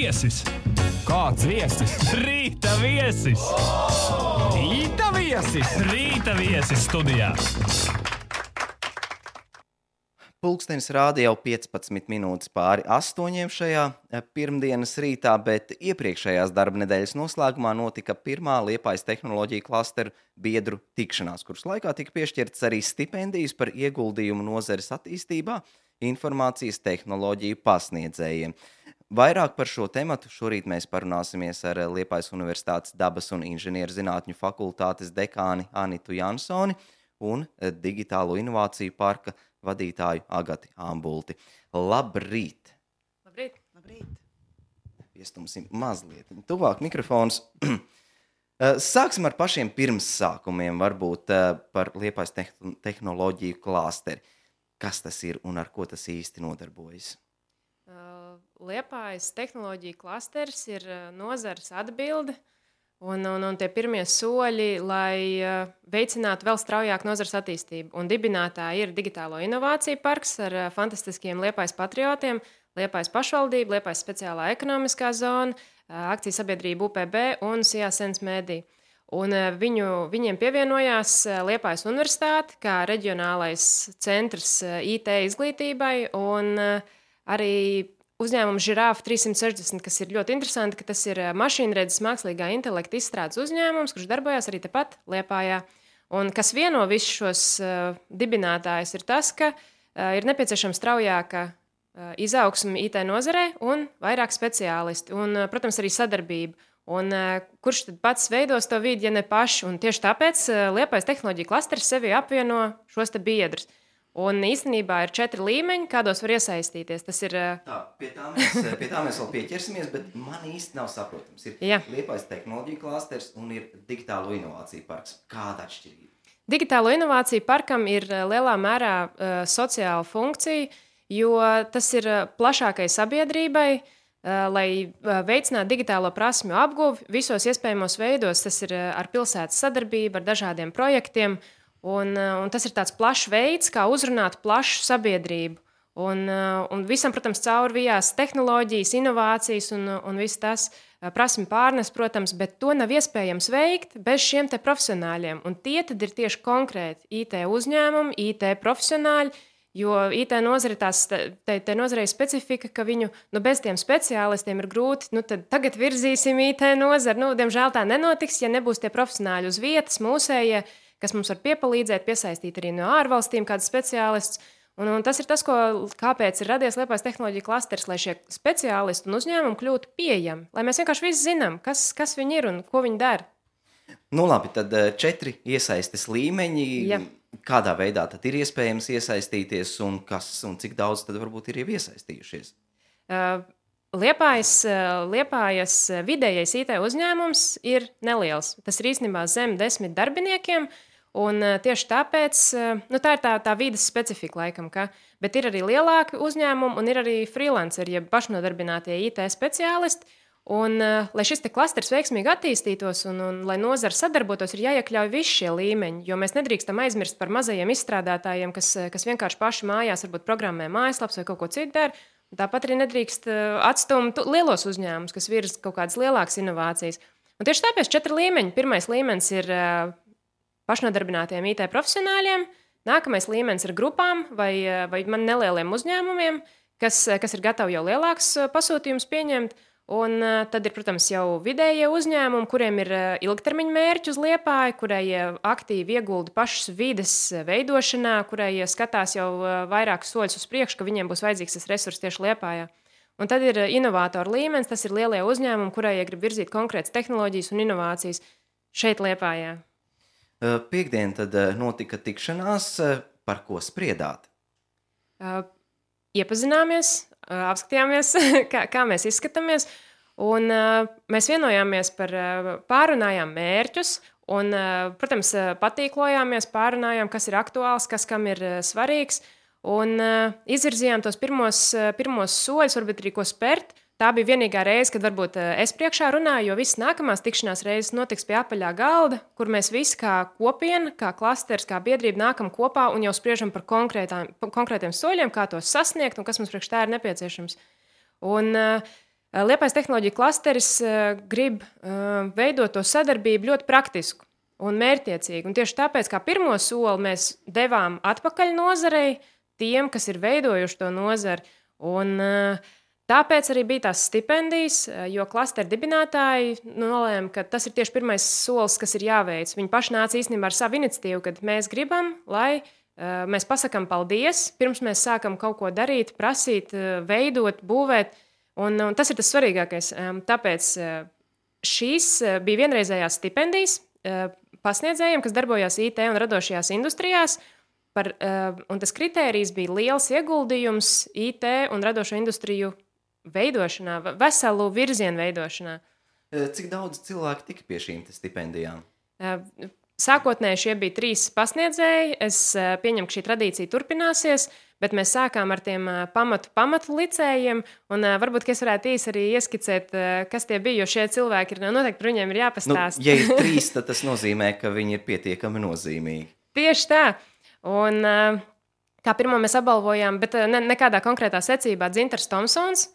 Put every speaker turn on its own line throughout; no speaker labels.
viesis.
Kāds viesis?
Rīta viesis.
Rīta viesis!
Rīta viesis studijā.
Pulkstenis rāda jau 15 minūtes pāri 8 šajā pirmdienas rītā, bet iepriekšējās darba nedēļas noslēgumā notika pirmā Liepājas tehnoloģiju klasteru biedru tikšanās, kuras laikā tika piešķirtas arī stipendijas par ieguldījumu nozares attīstībā informācijas tehnoloģiju pasniedzējiem. Vairāk par šo tematu šorīt mēs parunāsimies ar Liepājas Universitātes dabas un inženierzinātņu fakultātes dekāni Anitu Jansoni un digitālo inovāciju parka vadītāju Agati Ambulti. Labrīt!
Labrīt! Labrīt!
Piestumsim mazliet tuvāk mikrofons. Sāksim ar pašiem pirmssākumiem, varbūt par Liepājas tehnoloģiju klāsteri. Kas tas ir un ar ko tas īsti nodarbojas?
Liepājas tehnoloģija klasters ir nozares atbilde un tie pirmie soļi, lai veicinātu vēl straujāk nozares attīstību. Un dibinātāji ir Digitālo inovāciju parks ar fantastiskiem Liepājas patriotiem, Liepājas pašvaldība, Liepājas speciālā ekonomiskā zona, akciju sabiedrība UPB un Sijasens Medija. Un viņiem pievienojās Liepājas Universitāte kā reģionālais centrs IT izglītībai un arī uzņēmums Žirāfa 360, kas ir ļoti interesanti, ka tas ir mašīnredzes mākslīgā intelekta izstrādes uzņēmums, kurš darbojās arī tepat Liepājā. Un kas vieno visus šos dibinātājus ir tas, ka ir nepieciešama straujāka izaugsme IT nozarē un vairāk speciālisti un, protams, arī sadarbība. Un kurš tad pats veidos to vidi, ja ne paši? Un tieši tāpēc Liepājas tehnoloģija klasters sevi apvieno šos te biedrus. Un īstenībā ir 4 līmeņi, kādos var iesaistīties. Tas ir...
Pie tā mēs vēl pieķersimies, bet man īsti nav saprotams. Ir Liepājas tehnoloģija klasters un ir Digitālo inovāciju parks. Kāda atšķirība?
Digitālo inovāciju parkam ir lielā mērā sociāla funkcija, jo tas ir plašākai sabiedrībai, lai veicinātu digitālo prasmju apguvi visos iespējamos veidos. Tas ir ar pilsētas sadarbību, ar dažādiem projektiem. Un tas ir tāds plašs veids, kā uzrunāt plašu sabiedrību. Un visam, protams, caurvijās tehnoloģijas, inovācijas un viss tas prasmi pārnes, protams, bet to nav iespējams veikt bez šiem te profesionāļiem. Un tie tad ir tieši konkrēti IT uzņēmumi, IT profesionāļi, jo IT nozare te nozarei specifika, ka viņu bez tiem speciālistiem ir grūti, tad tagad virzīsim IT nozari. Diemžēl tā nenotiks, ja nebūs tie profesionāļi uz vietas, mūsējie, kas mums var piepalīdzēt, piesaistīt arī no ārvalstīm kāds speciālists. Un tas ir tas, kāpēc ir radies Liepājas tehnoloģija klasters, lai šie speciālisti un uzņēmumi kļūtu pieejami. Lai mēs vienkārši visi zinām, kas viņi ir un ko viņi dara.
Labi, tad 4 iesaistes līmeņi.
Ja.
Kādā veidā tad ir iespējams iesaistīties un cik daudz tad varbūt ir jau iesaistījušies?
Liepājas vidējais IT uzņēmums ir neliels. Tas ir īstenībā zem 10 darbiniekiem, un tieši tāpēc tā ir tā vides specifika laikam, bet ir arī lielāki uzņēmumi un ir arī freelanceri, ja pašnodarbinātie IT speciālisti. Un, lai šis te klasters veiksmīgi attīstītos un lai nozara sadarbotos, ir jāiekļauj visi šie līmeņi, jo mēs nedrīkstam aizmirst par mazajiem izstrādātājiem, kas vienkārši paši mājās varbūt programmē mājaslaps vai kaut ko citu dara. Tāpat arī nedrīkst atstumt lielos uzņēmumus, kas virza kaut kādas lielākas inovācijas. Un tieši tāpēc 4 līmeņi. Pirmais līmenis ir pašnodarbinātiem IT profesionāļiem, nākamais līmenis ir grupām vai man nelieliem uzņēmumiem, kas ir gatavi jau lielāks pasūtījums pieņemt. Un tad ir, protams, jau vidējie uzņēmumi, kuriem ir ilgtermiņa mērķi uz Liepāju, kurai aktīvi iegulda pašas vides veidošanā, kurai skatās jau vairākus soļus uz priekšu, ka viņiem būs vajadzīgs tas resurs tieši Liepājā. Un tad ir inovātoru līmenis, tas ir lielie uzņēmumi, kurai grib virzīt konkrētas tehnoloģijas un inovācijas šeit Liepājā.
Piektdien tad notika tikšanās, par ko spriedāt?
Iepazināmies, apskatījāmies, kā mēs izskatāmies, un mēs vienojāmies pārunājām mērķus, un, protams, patīklojāmies, pārunājām, kas ir aktuāls, kas kam ir svarīgs, un izvirzījām tos pirmos soļus, varbūt arī ko spērt. Tā bija vienīgā reize, kad varbūt es priekšā runāju, jo visas nākamās tikšanās reizes notiks pie apaļā galda, kur mēs visi kā kopiena, kā klasters, kā biedrība nākam kopā un jau spriežam par konkrētiem soļiem, kā tos sasniegt un kas mums priekš tā ir nepieciešams. Un Liepājas tehnoloģiju klasteris grib veidot to sadarbību ļoti praktisku un mērķtiecīgu. Un tieši tāpēc, kā pirmo soli mēs devām atpakaļ nozarei, tiem, kas ir veidojuši to nozari. Un tāpēc arī bija tās stipendijas, jo klastera dibinātāji nolēma, ka tas ir tieši pirmais solis, kas ir jāveic. Viņi paši nāca īstenībā ar savu iniciatīvu, kad mēs gribam, lai mēs pasakām paldies, pirms mēs sākam kaut ko darīt, prasīt, veidot, būvēt. Un tas ir tas svarīgākais. Tāpēc šīs bija vienreizējās stipendijas pasniedzējiem, kas darbojās IT un radošajās industrijās. Un tas kritērijs bija liels ieguldījums IT un radošo industriju veidošanā, veselu virzienu veidošanā.
Cik daudz cilvēku tika pie šīm stipendijām?
Sākotnēji šie bija 3 pasniedzēji. Es pieņemu, ka šī tradīcija turpināsies, bet mēs sākām ar tiem pamatu licējiem. Un varbūt, ka es varētu īsi arī ieskicēt, kas tie bija, jo šie cilvēki ir noteikti par viņiem ir jāpastāst.
Ja ir 3, tad tas nozīmē, ka viņi ir pietiekami nozīmīgi.
Tieši tā. Un kā pirmo mēs apbalvojām, bet nekādā konkrētā secībā Dzintars Tomsons,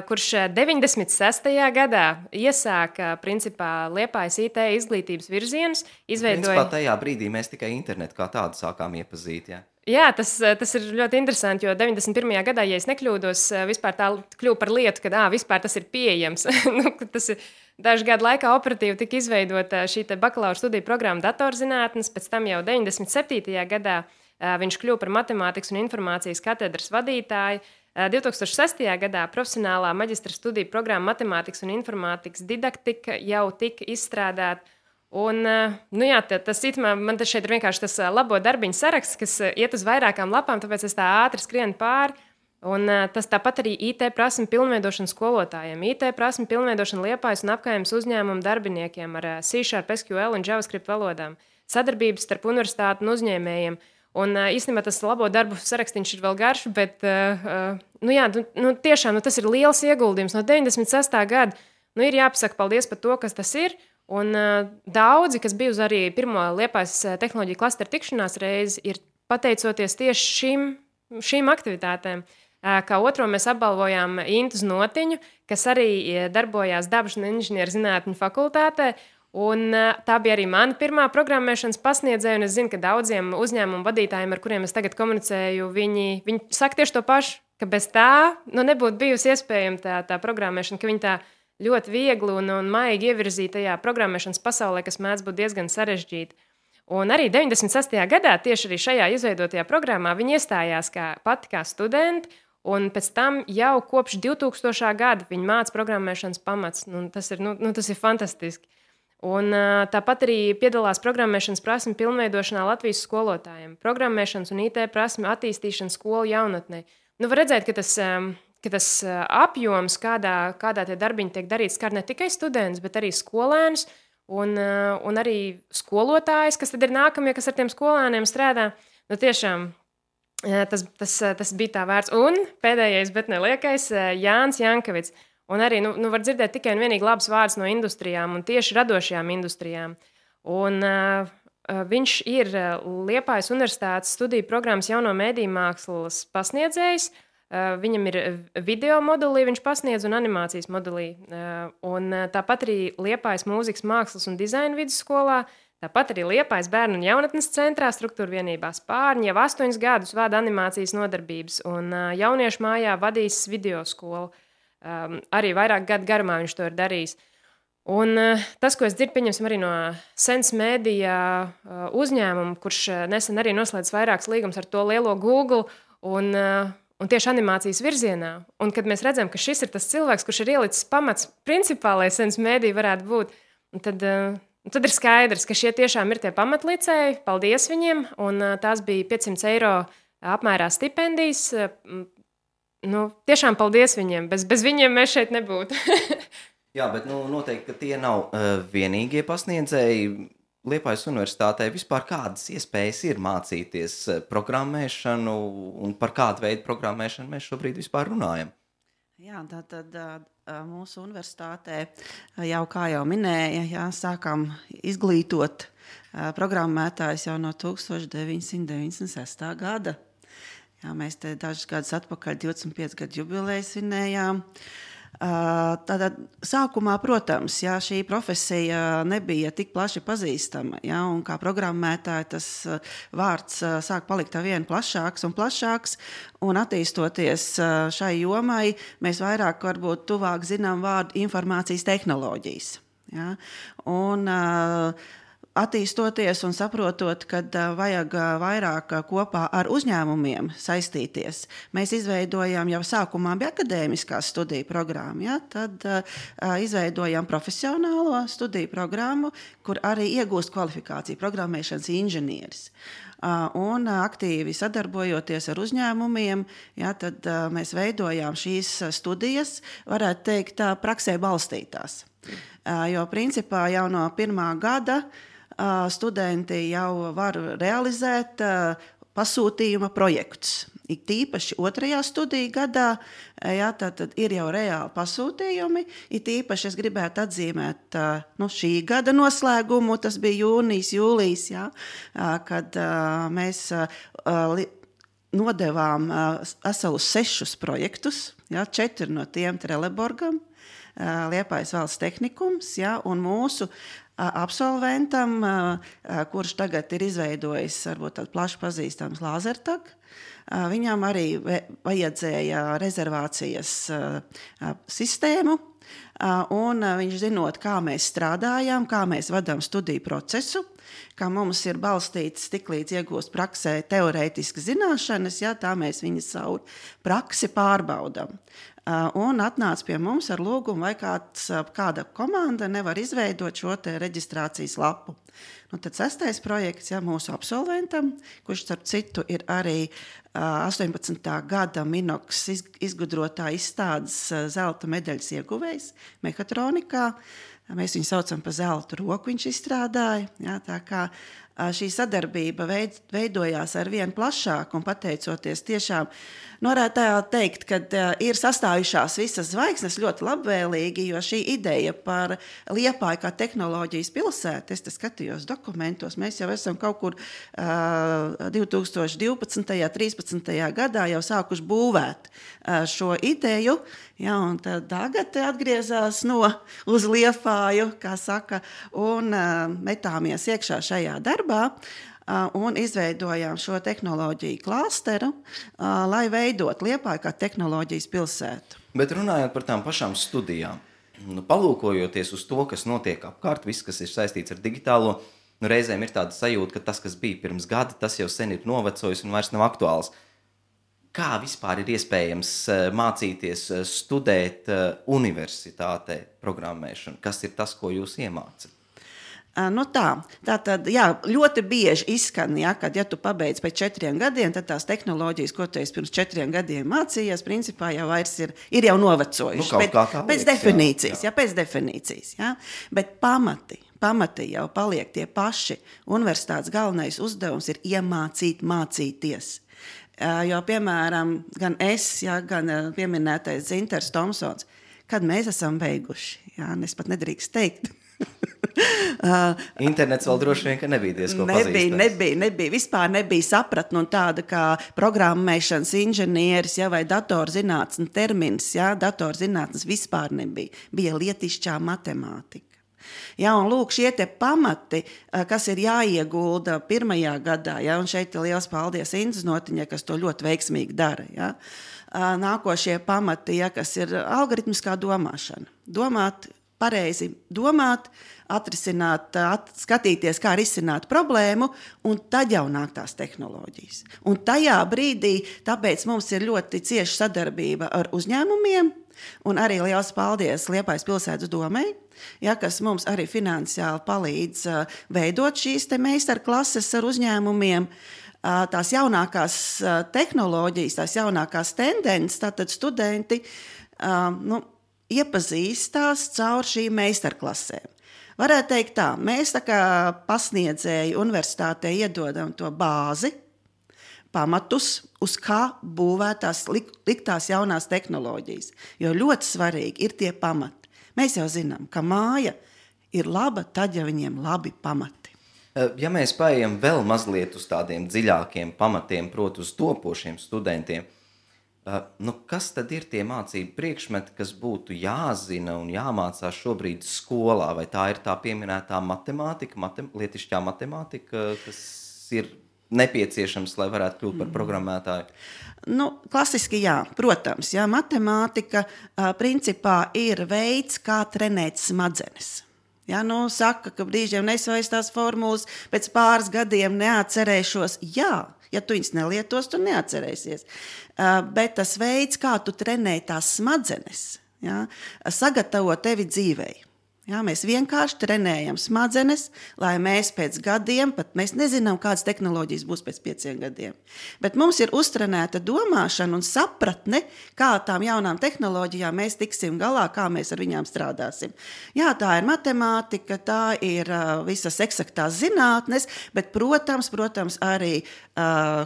kurš 96. gadā iesāka principā Liepājas IT izglītības virzienus, izveidoja...
Principā tajā brīdī mēs tikai internetu kā tādu sākām iepazīt, jā?
Jā, tas ir ļoti interesanti, jo 91. gadā, ja es nekļūdos, vispār tā kļuva par lietu, ka vispār tas ir pieejams. Tas ir dažu gadu laikā operatīvi tika izveidota šī bakalaura studiju programma datorzinātnes, pēc tam jau 97. gadā viņš kļuva par matemātikas un informācijas katedras vadītāju. 2006. gadā profesionālā maģistra studiju programma matemātikas un informātikas didaktika jau tika izstrādāta. Un, man tas šeit ir vienkārši tas labo darbiņu saraksts, kas iet uz vairākām lapām, tāpēc es tā ātri skrienu pāri. Un tas tāpat arī IT prasmi pilnveidošana skolotājiem, IT prasmi pilnveidošana Liepājas un apkaimes uzņēmumu darbiniekiem ar C#, SQL un JavaScript valodām, sadarbības starp universitāti un uzņēmējiem. Un īstenībā tas labo darbu sarakstīns ir vēl garš, bet tiešām tas ir liels ieguldījums. No 96. gada ir jāpasaka paldies par to, kas tas ir. Un daudzi, kas bija uz arī pirmo Liepājas tehnoloģiju klasteru tikšanās reizi, ir pateicoties tieši šīm aktivitātēm. Kā otro mēs apbalvojām Intu Znotiņu, kas arī darbojās Dabas un inženieru zinātņu fakultātē. Un tā bija arī mana pirmā programmēšanas pasniedzēja, un es zinu, ka daudziem uzņēmumu vadītājiem, ar kuriem es tagad komunicēju, viņi saka tieši to pašu, ka bez tā nebūtu bijusi iespējama tā programmēšana, ka viņi tā ļoti viegli un maigi ievirzīja tajā programmēšanas pasaulē, kas mēdz būt diezgan sarežģīta. Un arī 96. gadā, tieši arī šajā izveidotajā programmā, viņi iestājās pati kā studenti, un pēc tam jau kopš 2000. gada viņi māca programmēšanas pamats. Tas ir fantastiski. Un tāpat arī piedalās programmēšanas prasmi pilnveidošanā Latvijas skolotājiem, programmēšanas un IT prasmi attīstīšana skolu jaunatnē. Var redzēt, ka tas apjoms, kādā tie darbiņi tiek darīts, skar ne tikai studentus, bet arī skolēnus un arī skolotājus, kas tad ir nākamie, kas ar tiem skolēniem strādā. Tiešām tas bija tā vērts. Un pēdējais, bet neliekais, Jānis Jankovits. Un arī var dzirdēt tikai un vienīgi labs vārds no industrijām un tieši radošajām industrijām. Un viņš ir Liepājas Universitātes studiju programmas jauno mediju mākslas pasniedzējs. Viņam ir video modulī, viņš pasniedz un animācijas modulī. Un tāpat arī Liepājas mūzikas mākslas un dizaina vidusskolā, tāpat arī Liepājas bērnu un jaunatnes centrā struktūra vienībā Spārņi jau 8 gadus vada animācijas nodarbības un jauniešu mājā vadīs video skolu. Arī vairāk gadu garumā viņš to ir darījis. Un tas, ko es dzirdu, pieņemsim arī no Sense Media uzņēmuma, kurš nesen arī noslēdz vairākas līgumus ar to lielo Google un tieši animācijas virzienā. Un kad mēs redzam, ka šis ir tas cilvēks, kurš ir ielicis pamats principā, lai Sense Media varētu būt, tad ir skaidrs, ka šie tiešām ir tie pamatlicēji. Paldies viņiem, un tās bija 500 eiro apmērā stipendijas. Tiešām paldies viņiem. Bez viņiem mēs šeit nebūtu.
Jā, bet noteikti, ka tie nav vienīgie pasniedzēji. Liepājas universitātē vispār kādas iespējas ir mācīties programmēšanu un par kādu veidu programmēšanu mēs šobrīd vispār runājam?
Jā, tātad mūsu universitātē jau, kā jau minēja, sākām izglītot programmētājus jau no 1996. gada. Jā, mēs te dažus gadus atpakaļ 25 gadu jubileju svinējām. Tātad sākumā, protams, ja šī profesija nebija tik plaši pazīstama, ja, un kā programmētāji tas vārds sāk palikt vien plašāks un plašāks, un attīstoties šai jomai, mēs vairāk varbūt tuvāk zinām vārdu informācijas tehnoloģijas. Ja, un attīstoties un saprotot, ka vajag vairāk kopā ar uzņēmumiem saistīties, mēs izveidojām jau sākumā bija akadēmiskās studiju programma, ja, tad izveidojām profesionālo studiju programmu, kur arī iegūst kvalifikāciju programmēšanas inženieris. Un aktīvi sadarbojoties ar uzņēmumiem, ja, tad mēs veidojām šīs studijas, varētu teikt, praksē balstītās. Jo principā jau no pirmā gada studenti jau var realizēt pasūtījuma projektus. Ik tīpaši 2. studiju gadā, ja, tad ir jau reāli pasūtījumi. Ik tīpaši es gribētu atzīmēt šī gada noslēgumu, tas bija jūnijas, jūlijas, ja, kad mēs nodevām veselus 6 projektus, ja, 4 no tiem Trelleborgam, Liepājas valsts tehnikums, ja, un mūsu absolventam, kurš tagad ir izveidojis varbūt tādu plaši pazīstams Lāzertag, viņam arī vajadzēja rezervācijas sistēmu, un viņš zinot, kā mēs strādājam, kā mēs vadām studiju procesu, kā mums ir balstīts tiklīdz iegūst praksē teorētiski zināšanas, ja, tā mēs viņas savu praksi pārbaudam. Un atnāca pie mums ar lūgumu, vai kāda komanda nevar izveidot šo te reģistrācijas lapu. Tad 6. projekts, ja, mūsu absolventam, kurš starp citu ir arī 18. gada Minox izgudrotā izstādes zelta medaļas ieguvējs mehatronikā. Mēs viņu saucam par zelta roku, viņš izstrādāja. Ja, tā kā šī sadarbība veidojās ar vien plašāk un pateicoties tiešām, varētu teikt, ka ir sastājušās visas zvaigznes ļoti labvēlīgi, jo šī ideja par Liepāju kā tehnoloģijas pilsētu, es te skatījos dokumentos, mēs jau esam kaut kur 2012. 13. gadā jau sākuši būvēt šo ideju, ja, un tad tagad atgriezās uz Liepāju, kā saka, un metāmies iekšā šajā darbā, un izveidojām šo tehnoloģiju klāsteru, lai veidot Liepāju kā tehnoloģijas pilsētu.
Bet runājot par tām pašām studijām, palūkojoties uz to, kas notiek apkārt, viss, kas ir saistīts ar digitālo, reizēm ir tāda sajūta, ka tas, kas bija pirms gada, tas jau sen ir novecojis un vairs nav aktuāls. Kā vispār ir iespējams mācīties, studēt universitātē programmēšanu? Kas ir tas, ko jūs iemācat?
Tātad, jā, ļoti bieži izskan, ja, kad ja tu pabeidz pēc 4 gadiem, tad tās tehnoloģijas, ko tu esi pirms 4 gadiem mācījies, principā jau vairs ir jau novecojuši. Pēc definīcijas, jā. Pēc definīcijas, jā. Bet pamati jau paliek tie paši. Universitātes galvenais uzdevums ir iemācīt mācīties. Jo, piemēram, gan es, ja, gan pieminētais Zinters Tomsons, kad mēs esam beiguši, jā, es pat nedrīkst teikt.
Internets vēl droši vien, ka nebija diezko pazīstams.
Nebija. Vispār nebija sapratne un tāda kā programmēšanas inženieris, ja, vai datorzinātnes termins, ja, datorzinātnes vispār nebija. Bija lietišķā matemātika. Ja, un lūk, šie te pamati, kas ir jāiegulda pirmajā gadā, ja, un šeit ir liels paldies Indas Notiņai, kas to ļoti veiksmīgi dara. Ja. Nākošie pamati, ja, kas ir algoritmiskā domāšana. Pareizi domāt, atrisināt, skatīties, kā risināt problēmu, un tad jau nāk tās tehnoloģijas. Un tajā brīdī, tāpēc mums ir ļoti cieša sadarbība ar uzņēmumiem, un arī liels paldies Liepājas pilsētas domei, ja, kas mums arī finansiāli palīdz veidot šīs te meistarklases ar uzņēmumiem. Tās jaunākās tehnoloģijas, tās jaunākās tendences, tātad studenti iepazīstās caur šīm meistarklasēm. Varētu teikt tā, mēs tā kā pasniedzēji universitātē iedodam to bāzi, pamatus, uz kā būvētās liktās jaunās tehnoloģijas. Jo ļoti svarīgi ir tie pamati. Mēs jau zinām, ka māja ir laba tad, ja viņiem labi pamati.
Ja mēs paejam vēl mazliet uz tādiem dziļākiem pamatiem, proti uz topošiem studentiem, Kas tad ir tie mācību priekšmeti, kas būtu jāzina un jāmācās šobrīd skolā? Vai tā ir tā pieminētā matemātika, lietišķā matemātika, kas ir nepieciešams, lai varētu kļūt par programmētāju?
Klasiski jā, protams. Jā, matemātika principā ir veids, kā trenēt smadzenes. Ja, saka, ka brīžiem nesvairs tās formulas, pēc pāris gadiem neatcerēšos. Jā, ja tu viņas nelietos, tu neatcerēsies. Bet tas veids, kā tu trenē tās smadzenes, ja, sagatavo tevi dzīvei. Ja, mēs vienkārši trenējam smadzenes, lai mēs pēc gadiem, pat mēs nezinām, kādas tehnoloģijas būs pēc 5 gadiem. Bet mums ir uztrenēta domāšana un sapratne, kā tām jaunām tehnoloģijām mēs tiksim galā, kā mēs ar viņām strādāsim. Jā, tā ir matemātika, tā ir visas eksaktās zinātnes, bet, protams, arī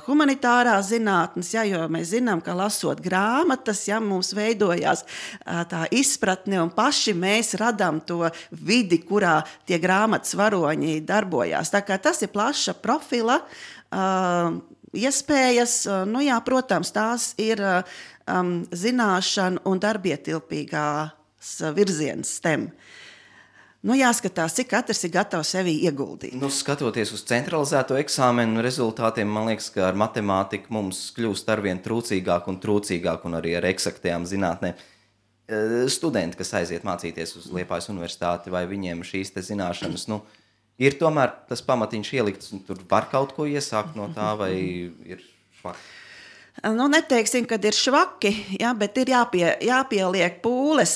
humanitārās zinātnes, ja, jo mēs zinām, ka lasot grāmatas, ja, mums veidojās tā izpratne un paši mēs radām to vidi, kurā tie grāmatas varoņi darbojās. Tā kā tas ir plaša profila iespējas, jā, protams, tās ir zināšana un darbietilpīgās virziens STEM. Jāskatās, cik katrs ir gatavs sevi ieguldīt.
Skatoties uz centralizēto eksāmenu rezultātiem, man liekas, ka ar matemātiku mums kļūst arvien trūcīgāk un arī ar eksaktajām zinātnēm. Studenti, kas aiziet mācīties uz Liepājas universitāti, vai viņiem šīs te zināšanas, ir tomēr tas pamatiņš ielikts, un tur var kaut ko iesākt no tā, vai ir švaki?
Neteiksim, kad ir švaki, ja, bet ir jāpieliek pūles,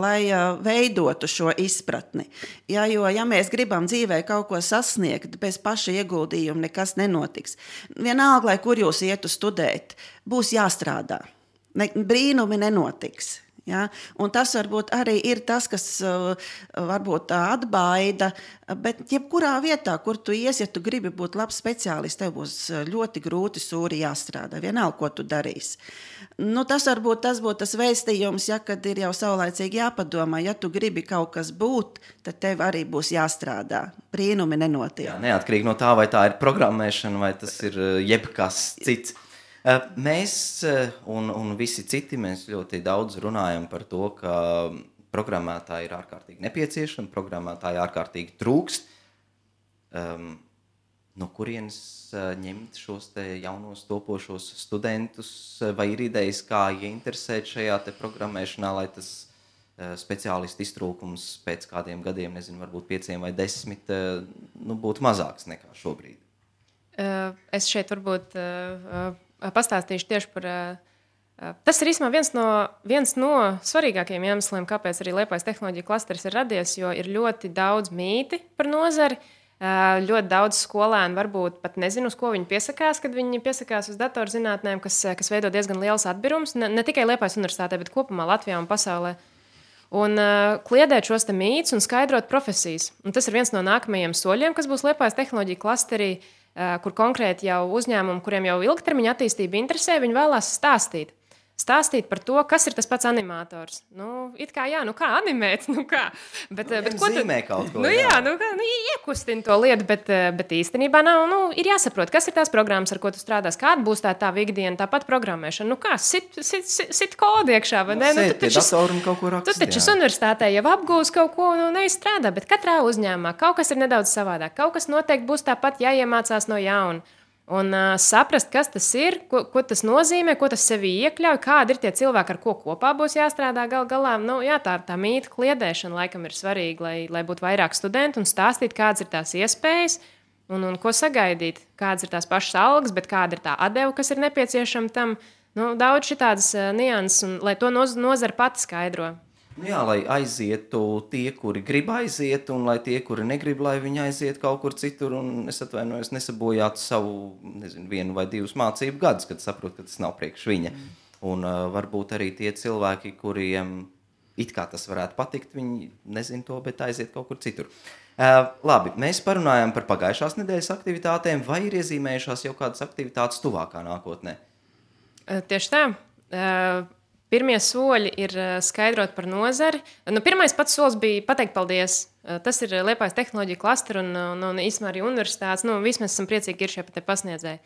lai veidotu šo izpratni. Ja, jo, ja mēs gribam dzīvē kaut ko sasniegt, bez paša ieguldījuma nekas nenotiks. Vienalga, lai kur jūs ietu studēt, būs jāstrādā. Brīnumi nenotiks. Ja? Un tas varbūt arī ir tas, kas varbūt atbaida, bet jebkurā vietā, kur tu ies, ja tu gribi būt labs speciālists, tev būs ļoti grūti sūri jāstrādā, vienalga, ko tu darīsi. Tas varbūt tas būtu tas vēstījums, ja, kad ir jau saulaicīgi jāpadomā, ja tu gribi kaut kas būt, tad tev arī būs jāstrādā. Brīnumi nenotiek.
Jā, neatkarīgi no tā, vai tā ir programmēšana, vai tas ir jebkas cits. Mēs un visi citi, mēs ļoti daudz runājam par to, ka programmētāji ir ārkārtīgi nepieciešami, programmētāji ārkārtīgi trūkst. No kurienes ņemt šos te jaunos topošos studentus, vai ir idejas, kā ieinteresēt šajā te programmēšanā, lai tas speciālistu iztrūkums pēc kādiem gadiem, nezinu, varbūt 5 vai 10, būtu mazāks nekā šobrīd?
Es šeit varbūt pastāstīšu tieši par... Tas ir īstenībā viens no svarīgākajiem iemesliem, kāpēc arī Liepājas tehnoloģija klasteris ir radies, jo ir ļoti daudz mīti par nozari. Ļoti daudz skolēnu varbūt pat nezinu, uz ko viņi piesakās, kad viņi piesakās uz datorzinātnēm, kas veido diezgan liels atbirums, ne tikai Liepājas universitātē, bet kopumā Latvijā un pasaulē. Un kliedēt šos te mītus un skaidrot profesijas. Un tas ir viens no nākamajiem soļiem, kas būs Liepājas tehnoloģija klasterī, kur konkrēti jau uzņēmumi, kuriem jau ilgtermiņa attīstība interesē, viņi vēlās stāstīt par to, kas ir tas pats animators. It kā jā, kā animēt, kā. Bet ko
zīmē kaut ko.
Iekustina to lietu, bet īstenībā nav, ir jāsaprot, kas ir tās programmas, ar ko tu strādās, kāda būs tā ikdiena, tāpat programmēšana. Kā, sit kodu iekšā, vai ne?
Sēt pie datoru un kaut ko rakstīt.
Tu taču universitātē jau apgūs kaut ko, neizstrādā, bet katrā uzņēmumā kaut kas ir nedaudz savādāk. Kaut kas noteikti būs tāpat jāiemācās no jauna. Un saprast, kas tas ir, ko tas nozīmē, ko tas sevī iekļauj, kādi ir tie cilvēki, ar ko kopā būs jāstrādā galā. Tā mīta kliedēšana laikam ir svarīga, lai būtu vairāk studentu un stāstīt, kādas ir tās iespējas un ko sagaidīt, kādas ir tās pašas algas, bet kāda ir tā atdeva, kas ir nepieciešama tam. Daudz šitādas nianses, un lai to nozara pati skaidro.
Jā, lai aizietu tie, kuri grib aiziet, un lai tie, kuri negrib, lai viņi aiziet kaut kur citur, un es atvainojos, nesabojātu savu, 1 vai 2 mācību gadus, kad saprotu, ka tas nav priekš viņa. Un varbūt arī tie cilvēki, kuriem it kā tas varētu patikt, viņi nezin to, bet aiziet kaut kur citur. Labi, mēs parunājām par pagājušās nedēļas aktivitātēm, vai ir iezīmējušās jau kādas aktivitātes tuvākā nākotnē?
Tieši tā. Pirmie soļi ir skaidrot par nozari. Pirmais pats solis bija pateikt paldies. Tas ir Liepājas tehnoloģija klastera un īstenībā arī universitātes. Visi mēs esam priecīgi, ka ir šie pasniedzēji.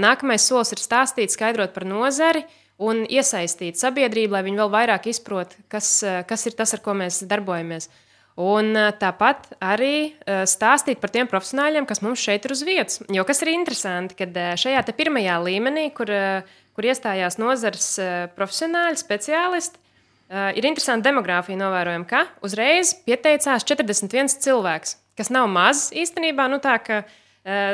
Nākamais solis ir stāstīt, skaidrot par nozari un iesaistīt sabiedrību, lai viņi vēl vairāk izprot, kas ir tas, ar ko mēs darbojamies. Un tāpat arī stāstīt par tiem profesionāļiem, kas mums šeit ir uz vietas. Jo kas ir interesanti, kad šajā te pirmajā līmenī, kur iestājās nozares profesionāļi, speciālisti, ir interesanti demogrāfija novērojama, ka uzreiz pieteicās 41 cilvēks, kas nav maz īstenībā, nu tā, ka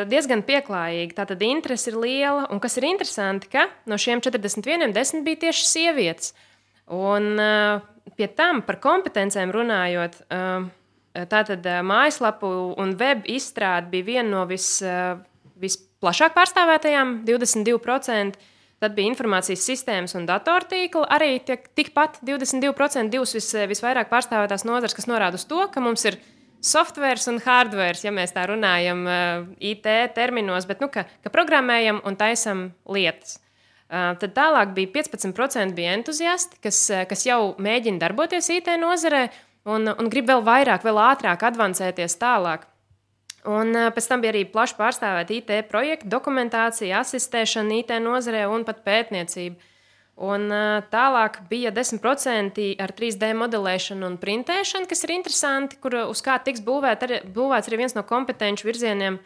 diezgan pieklājīgi. Tātad interese ir liela, un kas ir interesanti, ka no šiem 41 10 bija tieši sievietes. Un pie tam par kompetencēm runājot, tātad mājaslapu un web izstrāde bija viena no visplašāk pārstāvētajām, 22%. Tad bija informācijas sistēmas un datortīkla, arī tikpat 22%, divas visvairāk pārstāvētās nozares, kas norāda uz to, ka mums ir softwares un hardwares, ja mēs tā runājam IT terminos, bet ka programmējam un taisam lietas. Tad tālāk bija 15% bija entuziasti, kas jau mēģina darboties IT nozarē un grib vēl vairāk, vēl ātrāk advancēties tālāk. Un pēc tam bija arī plaši pārstāvēta IT projekta, dokumentācija, asistēšana IT nozarē un pat pētniecība. Un tālāk bija 10% ar 3D modelēšanu un printēšanu, kas ir interesanti, uz kā tiks būvēts arī viens no kompetenču virzieniem.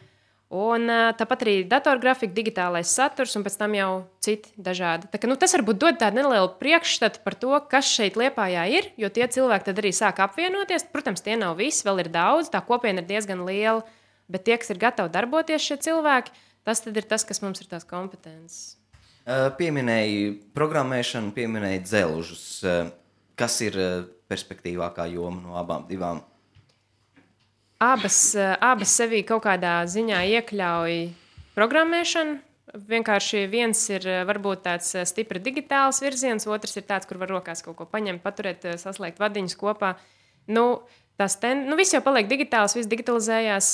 Un tāpat arī datorgrafika, digitālais saturs un pēc tam jau citi dažādi. Tā, tas varbūt dod tādu nelielu priekšstatu par to, kas šeit Liepājā ir, jo tie cilvēki tad arī sāk apvienoties. Protams, tie nav visi, vēl ir daudz, tā kopiena ir diezgan liela, bet tie, kas ir gatavi darboties šie cilvēki, tas tad ir tas, kas mums ir tās kompetences.
Pieminēji programmēšanu, pieminēji dzelžus. Kas ir perspektīvākā joma no abām divām?
Abas sevī kaut kādā ziņā iekļauj programmēšanu. Vienkārši viens ir varbūt tāds stipri digitāls virziens, otrs ir tāds, kur var rokās kaut ko paņemt, paturēt, saslēgt vadiņus kopā. Viss jau paliek digitāls, viss digitalizējās,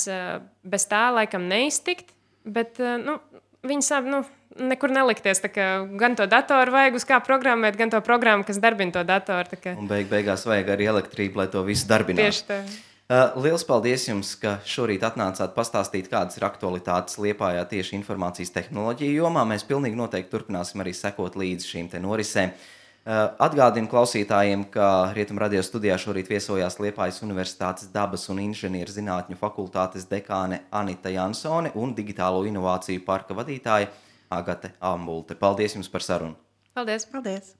bez tā laikam neiztikt, bet viņi sāp nekur nelikties. Gan to datoru vajag uz kā programmēt, gan to programmu, kas darbina to datoru.
Un beigās vajag arī elektrību, lai to visu darbinātu.
Tieši tā.
Liels paldies jums, ka šorīt atnācāt pastāstīt, kādas ir aktualitātes Liepājā tieši informācijas tehnoloģiju jomā. Mēs pilnīgi noteikti turpināsim arī sekot līdzi šīm te norisēm. Atgādinu klausītājiem, ka Rietumradio studijā šorīt viesojās Liepājas Universitātes dabas un inženieru zinātņu fakultātes dekāne Anita Jansone un digitālo inovāciju parka vadītāja Agate Ambulte. Paldies jums par sarunu!
Paldies!
Paldies!